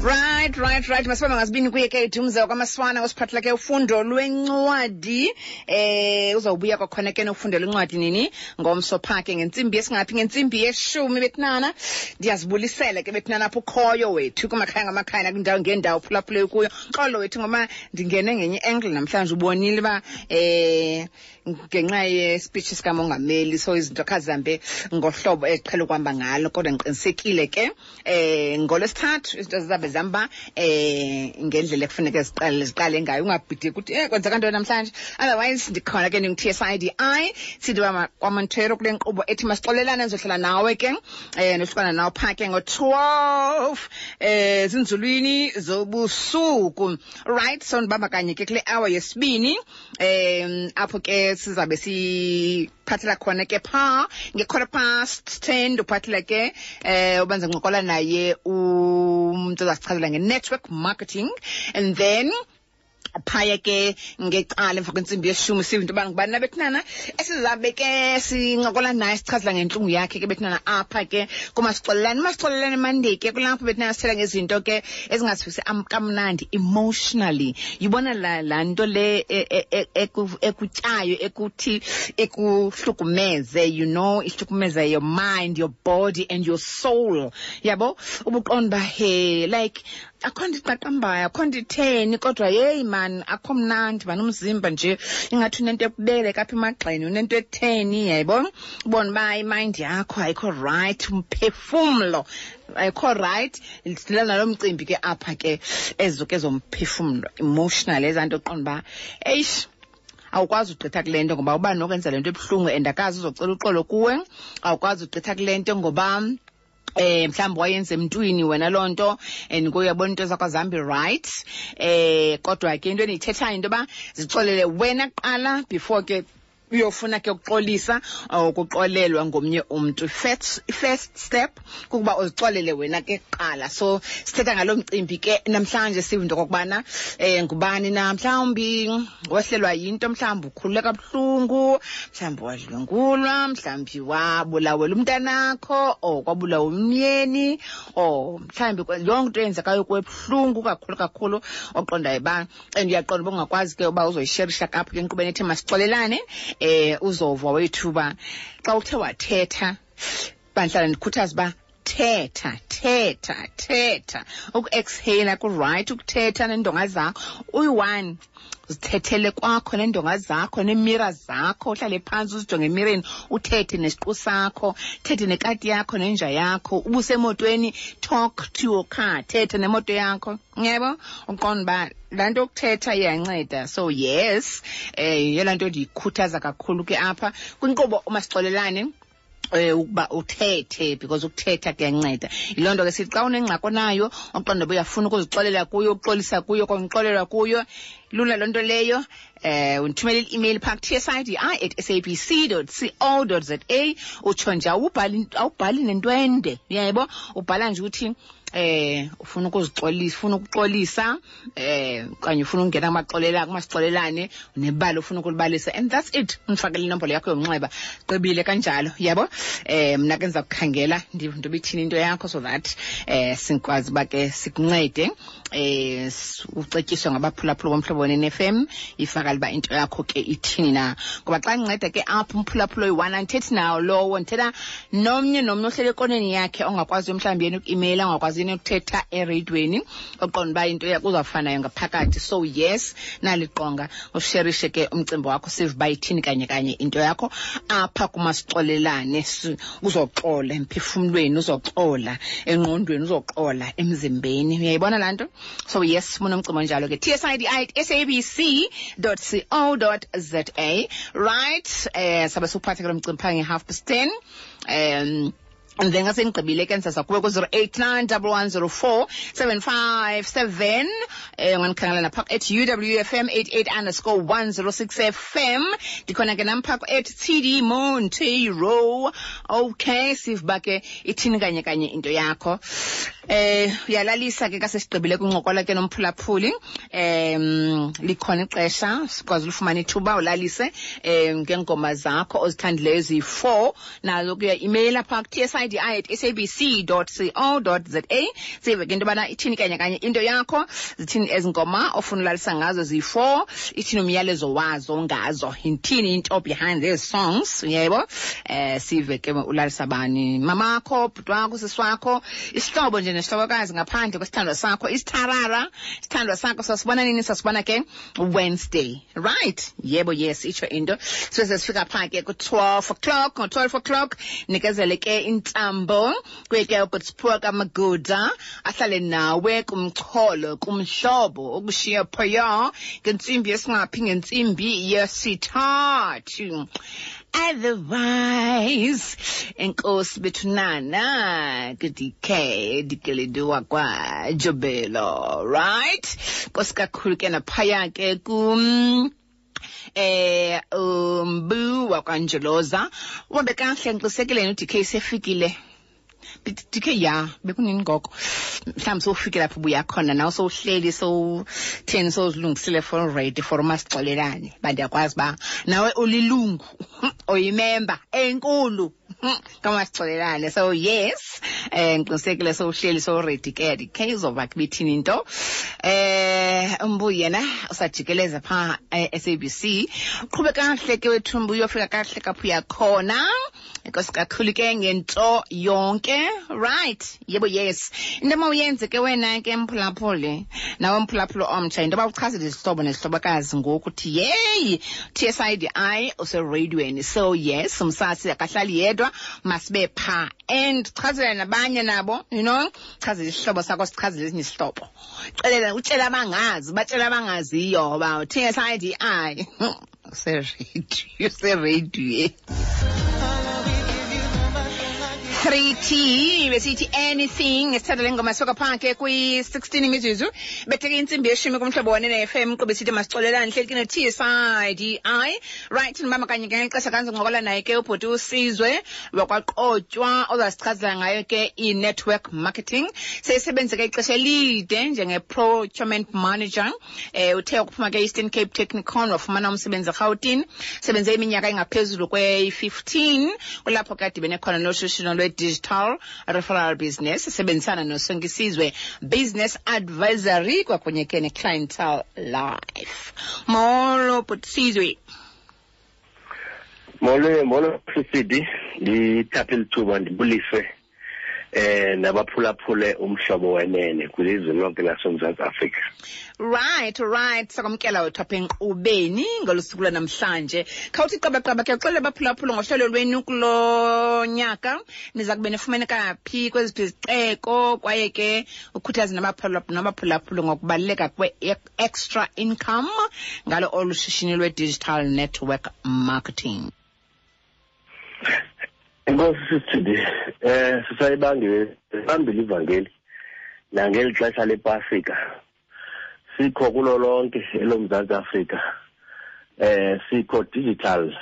Right. Masibambe ngasibini kuye ke Dumza kwaMaswana osiphathela ke ufundo lwencwadi. Uzawubuya kwakhona ke nofundo lwencwadi nini? Ngomso pha ke ngentsimbi yesingaphi? Ngentsimbi yeshumi bethinana. Ndiyazibulisela ke bethinana apho ukhoyo wethu kumakhaya ngamakhaya nakwindawo ngeendawo phulaphule kuyo. Xolo wethu ngoba ndingene ngenye angle namhlanje, ubonile uba ngenxa yespeech sikamongameli, so izinto khazihambe ngohlobo eziqhele ukuhamba ngalo, kodwa ndiqinisekile ke ngolwesithathu izinto zizabe zihamba ngendlela ekufuneka ziqale ngayo. Ungabhideki ukuthi kwenzeka ntoni namhlanje. Otherwise ndikhona ke, ndingu-TSIDI sithi kwaMontero kule nkqubo ethi masixolelane. Ndizohlala nawe ke nohlukana nawe phaa ke ngo-12 zinzulwini zobusuku. Right, so ndibamba kanye ke kule hour yesibini, apho ke sizabe siphathela khona ke phaa nge-10:15. Uphathela ke ubanza ncokola naye umntu ozasichazela nge-network marketing, and then phaya ke ngecala emva kwentsimbi yeshumi sive into yoba ngubani nabethinana esizabe ke sincokola naye, sichazela ngentlungu yakhe ke bethinana apha ke kumasixolelane. Umasixolelane Monday ke kulapho bethinana sithela ngezinto ke ezingasivisi kamnandi emotionally. Yibona laa nto le ekutyayo, ekuthi ikuhlukumeze, ihlukumeze your mind, your body and your soul, yabo? Ubuqonda uba he, like, akho nto iqaqambayo, akho nto itheni, kodwa yeyi man, akho mnandi man, umzimba nje ingathi unento ekubeleka apha emagxeni, unento etheni, yayibona? Ubona uba imind yakho ayikho right, umphefumlo ayikho right. Sidila nalo mcimbi ke apha ke, ezo ke zomphefumlo, emotional, ezaa nto uqonda uba eish, awukwazi ugqitha kule nto ngoba uba nokwenza le nto ebuhlungu and akazi uzocela uxolo kuwe. Awukwazi ugqitha kule nto ngoba mhlawumbi wayenza emntwini wena loo nto, and kuye uyabona into zakho azihambi right. Kodwa ke into endiyithethayo into yoba zixolele wena kuqala before ke uyofuna ke ukuxolisa or ukuxolelwa ngomnye umntu. First step kukuba uzixolele wena ke kuqala. So sithetha ngalo mcimbi ke namhlanje, sive into okokubana ngubani na mhlawumbi wehlelwa yinto, mhlawumbi ukhulule kabuhlungu, mhlawumbi wadlwengulwa, mhlawumbi wabulawela umntanakho or kwabulawa umyeni, or mhlawumbi yonke into eyenzekayo kwebuhlungu kakhulu kakhulu, oqondayo uba, and uyaqonda uba ungakwazi ke uba uzoyisherisha kapho ke enkqubeni ethe masixolelane. Uzova wethu uba xa uthe wathetha, bandihlala ndikhuthaza uba thetha, thetha, thetha. Uku-exhale ku-right, ukuthetha neendonga zakho uyi-one, uzithethele kwakho neendonga zakho neemira zakho, uhlale phantsi uzijonge emireni, uthethe nesiqu sakho, thethe nekati yakho nenja yakho. Ubusemotweni, talk to your car, thethe nemoto yakho, yebo, uqonda uba laa nto yokuthetha iyanceda. So yes, yeyona nto ndiyikhuthaza kakhulu ke apha kwinkqubo umasixolelane, ukuba uthethe, because ukuthetha kuyanceda. Yiloo nto ke sithi xa unengxaki onayo, oqonda uba uyafuna ukuzixolela kuyo, ukuxolisa kuyo, konixolelwa kuyo, lula loo nto leyo. Undithumele i-email phaa ku-tsidi@sabc.co.za, utsho nje, awubhali nento ende, uyayebo, ubhala nje uthi ufuna ukuzixolisa, ufuna ukuxolisa, okanye ufuna ukungena kumaxolela, kumasixolelane, nebali ufuna ukulibalisa, and that's it. Undifakele inombolo yakho yomnxeba, gqibile kanjalo, yabo. Mna ke ndiza kukhangela ndive into ibithini into yakho, so that sikwazi uba ke sikuncede, ucetyiswe ngabaphulaphula boMhlobo Wenene FM, ifakale uba into yakho ke ithini na. Ngoba xa ndinceda ke apho umphulaphula oyi-one, andithethi nawo lowo, ndithetha nomnye nomnye ohlele ekoneni yakhe, ongakwaziyo mhlawumbi yena uku-imeyila, ongakwaziyo yena ukuthetha ereyidweni, oqonda uba into yakho uzawufanayo ngaphakathi. So yes, naliqonga usherishe ke umcimbi wakho, sive uba ithini kanye kanye into yakho apha kumasixolelane. Uzoxola emphefumlweni, uzoxola engqondweni, uzoxola emzimbeni, uyayibona laa nto? So yes, munomcimbi onjalo ke, tsidi@sabc.co.za. Right, sabe siwuphathe ke lo mcimbi phaa nge-10:30, and then ngasendigqibile ke ndizaza kuwe ku-089 1104 757. Ungandikhangela napha @UWFM 88_106 FM. Ndikhona ke nam phaa @TD Montero. Okay, sive uba ke ithini kanye kanye into yakho. Uyalalisa ke kasesigqibile kuncokola ke nomphulaphuli. Likhona ixesha sikwazi ulifumana ithuba ulalise ngengoma zakho ozithandileyo eziyi-4, nazo kuya imeyila phaa ku-tsidi tsidi at sabc co za. Sive ke into yobana ithini kanye kanye into yakho, zithini ezi ngoma ofuna ulalisa ngazo ziyi-4, ithini umyalezo wazo ngazo, yithini into behind these songs, yebo. Sive ke ulalisa bani, mamakho, bhuti wakho, sisi wakho, isihlobo nje nesihlobokazi ngaphandle kwesithandwa sakho, isitharara, isithandwa sakho. Sasibona nini? Sasibona ke Wednesday, right? Yebo, yes, itsho into. So sesifika phaa ke ku-12 o'clock. Ngo-12 o'clock nikezele ke intambo kuye ke uGodsiphiwe kaMaguda, ahlale nawe kumxholo kumhlobo ukushiya phaya ngentsimbi yesingaphi? Ngentsimbi yesithathu. Otherwise, enkosi bethunana ku-DK Dikeledi wakwaJobelo, right? Nkosi kakhulu ke naphaya ke kum umbu wakwaNjoloza. Uhambe kahle, ngiqinisekile uDK sefikile. DK, ya, bekunini ngoko? Mhlawumbi sowufike lapho ubuya khona nawe, sowuhleli, sowutheni, sowuzilungisile for ready for umasixolelane. Uba ndiyakwazi uba nawe ulilungu, oyimemba enkulu kamasixolelane. So yes, ngiqinisekile sowuhleli, sowuready ke. DK uzova ke bithini into. Umbu yena usajikeleza phaa e-SABC. Uqhube kahle ke wethu mbu, uyofika kahle kapho uyakhona. Enkosi kakhulu ke ngento yonke. Right, yebo, yes, into mawuyenze ke wena ke mphulaphuli, nawe mphulaphuli omtsha, into yoba uchazele izihlobo nezihlobokazi ngoku uthi yeyi, TSIDI usereyidweni. So yes, umsasi akahlali yedwa, masibe phaa and chazela nabanye nabo, chazela isihlobo sakho, sichazele esinye isihlobo, xelela, utshele abangazi, batshele abangaziyo uba TSIDI usereyidweni, usereyidweni. 3T besithi anything. Esithatha le ngoma soka phaa ke kwi-16 imizuzu betheke intsimbi yeshumi kumhlobo wane ne-FM. Qube sithi masixolelane, hleli ke no-TSIDI, right? Ndibamba kanye ke ngexesha kanzoncokola naye ke ubhuti uSizwe wakwaQotywa, ozasichazela ngayo ke i-network marketing. Seyisebenze ke ixesha elide njenge-procurement manager. Uthe ukuphuma ke Eastern Cape Technikon, wafumana umsebenzi eRhawutini, sebenze iminyaka engaphezulu kwe-15. Kulapho ke adibene khona noshishino lwe-digital referral business, sebenzisana noSonkisizwe Business Advisory kwakunye ke ne-Clientele Life. Molo bhuti Sizwe. Molo, molo Sisidi, ndithathe lithuba ndibulise nabaphulaphule umhlobo wenene kwilizwe lonke laseMzantsi Afrika. Right, sakwamkela wethu apha enkqubeni ngolu suku lwanamhlanje. Khawuthi qabaqaba ke, uxelele abaphulaphula ngohlelo lwenu kulo nyaka, niza kube nifumaneka phi, kweziphi izixeko, kwaye ke ukhuthaze nabaphulaphula ngokubaluleka kwe-extra income ngalo olu shishini lwe-digital network marketing. Enkosi Sisithidi, sisayibangile bambile ivangeli nangeli xesha lePasika. Sikho kulo lonke eloMzantsi Afrika. Sikho digital.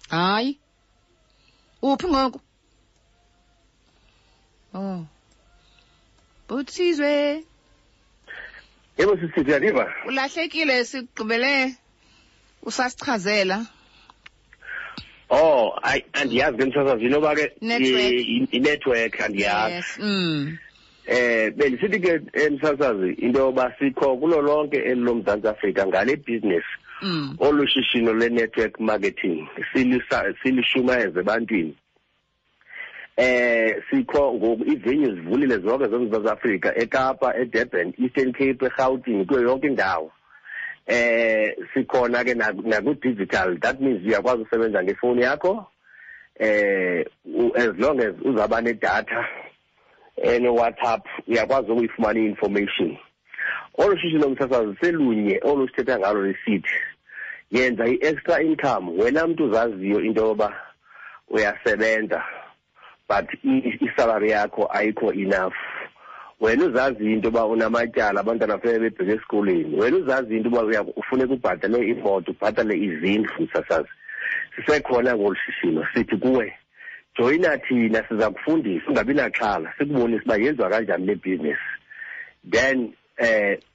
Hayi. Uphi ngoku? Oh. Bhuti Sizwe. Yebo Sisithidi, uyandiva? Ulahlekile, sigqibele usasichazela. Oh, ayi, andiyazi ke msasazi inoba ke Network. I-network andiyazi. Yes. Bendisithi ke emsasazi into yoba sikho kulo lonke eli loMzantsi Afrika ngale business. Olu shishino le-network marketing silishumayeze ebantwini. Sikho ngoku, ii-venues zivulile zonke zoMzantsi Afrika, eKapa, eDurban, Eastern Cape, eRhawutini, kuyo yonke indawo. Sikhona ke naku-digital, that means uyakwazi usebenza ngefowuni yakho, as long as uzawuba nedatha ene-WhatsApp, uyakwazi ukuyifumana i-information. Olu shishino msasazi selunye olu sithetha ngalo lisithi yenza i-extra income. Wena mntu uzaziyo into yoba uyasebenza but isalary yakho ayikho enough, wena uzazi into yoba unamatyala, abantwana funeka bebheke esikolweni, wena uzazi into yoba ufuneka ubhatale imoto, ubhatale izindlu, msasazi, sisekhona ngolu shishino. Sithi kuwe joyina thina, siza kufundisa, ungabi naxhala, sikubonise uba yenziwa kanjani le business, then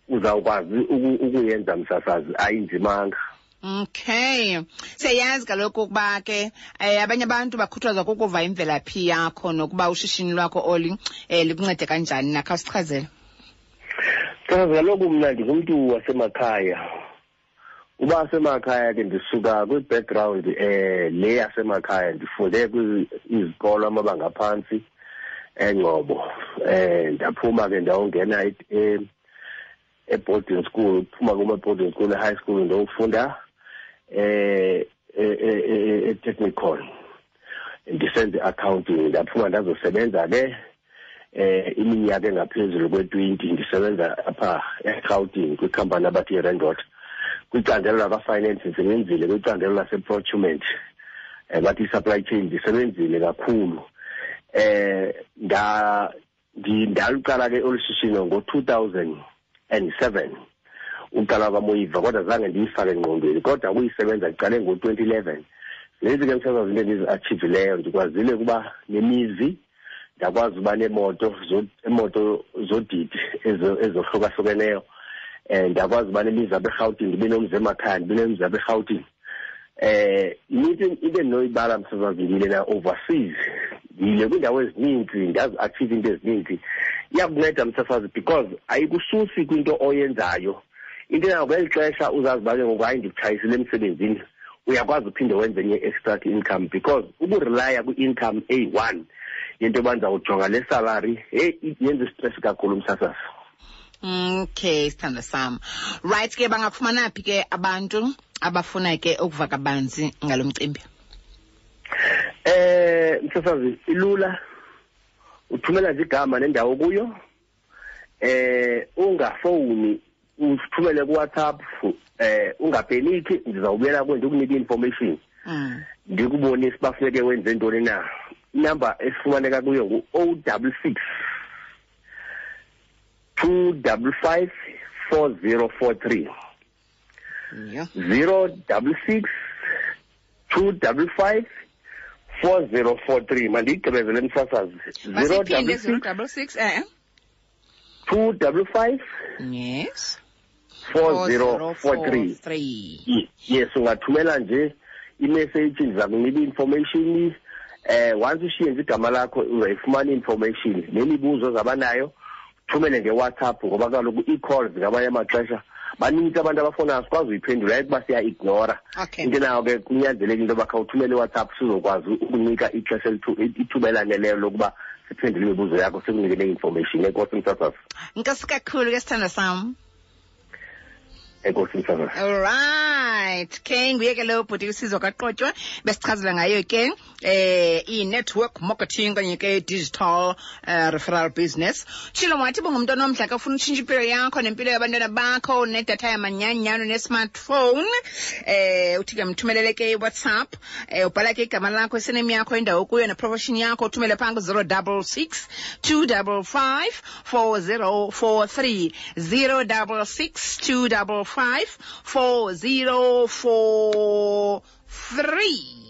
uzawukwazi ukuyenza msasazi, ayinzimanga. Okay. Siyayazi kaloku ukuba ke abanye abantu bakhuthazwa kukuva imvelaphi yakho nokuba ushishini lwakho oli likuncede kanjani na. Khawusichazele. Chaza kaloku, mna ndingumntu wasemakhaya. Uba semakhaya ke, ndisuka kwi-background le yasemakhaya. Ndifunde izikolo amabanga aphantsi eNgcobo, ndaphuma ke ndawungena e-boarding school. Phuma kuma-boarding school, e-high school, ndiyofunda e-technical, ndisenze i-accounting. Ndaphuma ndazosebenza ke iminyaka engaphezulu kwe-20, ndisebenza apha eRhawutini kwikhampani abathi i-Rand Water, kwicandelo lakwa-finance. Ndisebenzile kwicandelo lase-procurement, bathi i-supply chain. Ndisebenzile kakhulu. Nda ndaluqala ke olu shishino ngo-2007, uqala kwaMoyiva, kodwa zange ndiyifake engqondweni, kodwa ukuyisebenza ndiqale ngo-2011. Lezi ke, msasazi, into endizi-achievileyo, ndikwazile ukuba nemizi, ndakwazi uba neemoto, imoto zodidi ezohlukahlukeneyo. Ndakwazi uba nemizi apha eRhawutini, ndibe nomzi emakhaya, ndibe nomzi apha eRhawutini. Inintsi into endinoyibala, msasazi. Ndiyile na-overseas, ndiyile kwiindawo ezininzi, ndazi-achieve into ezininzi. Iyakunceda, msasazi, because ayikususi kwinto oyenzayo. Into yayo kweli xesha uzazi uba ke ngoku, hayi, ndikutshayisile emsebenzini, uyakwazi uphinde wenze enye extra income, because ukurelya kwi-income eyi-one yento yoba ndizawujonga le salary, heyi, yenza istress kakhulu, msasazi. Okay, sithando sam. Right ke, bangakufumana phi ke abantu abafuna ke ukuva kabanzi ngalo mcimbi? Msasazi, ilula. Uthumela nje igama nendawo kuyo. Ungafowuni, uthumele ku-WhatsApp. Ungapeniki, ndizawubuyela kuwe ndikunika i-information. Ndikubonise uba funeke wenze ntoni na. Inamba esifumaneka kuyo ngu-066 255 4043. 066 255 4043. Mandiyigqibezele, msasazi. Zero Masiphinde. double 0 six 66 255 4043. 3. Yes, ungathumela nje imessage, ndiza kunika i-information. Once ushiye nje igama lakho, uzayifumana i-information nemibuzo ozabanayo. Thumele nge-WhatsApp, ngoba kaloku ii-calls ngamanye amaxesha banintsi abantu abafonayo, sikwazi uyiphendula, ayikuba siya-ignora. Into nayo ke, kunyanzeleka into yoba khawuthumele iWhatsApp, sizokwazi ukunika ixesha, ithuba elaneleyo lokuba siphendule imibuzo yakho, sikunike ne-information. Enkosi, msasazi. Nkosi kakhulu ke, sithando sam. Enkosi, msasazi. Alright, ke nguye ke lo bhuti uSizwe kaQotywa, besichazela ngayo ke i-network marketing kanye ke digital referral business. Tshilo wathi bungumntu onomdla ke, ufuna utshintsha impilo yakho nempilo yabantwana bakho, nedatha yamanyanyano ne-smartphone, uthi ke mthumelele ke iWhatsApp, ubhala ke igama lakho, isename yakho, indawo kuyo neprofession yakho, uthumele phaa ku-066 255 4043, 066 255 4043.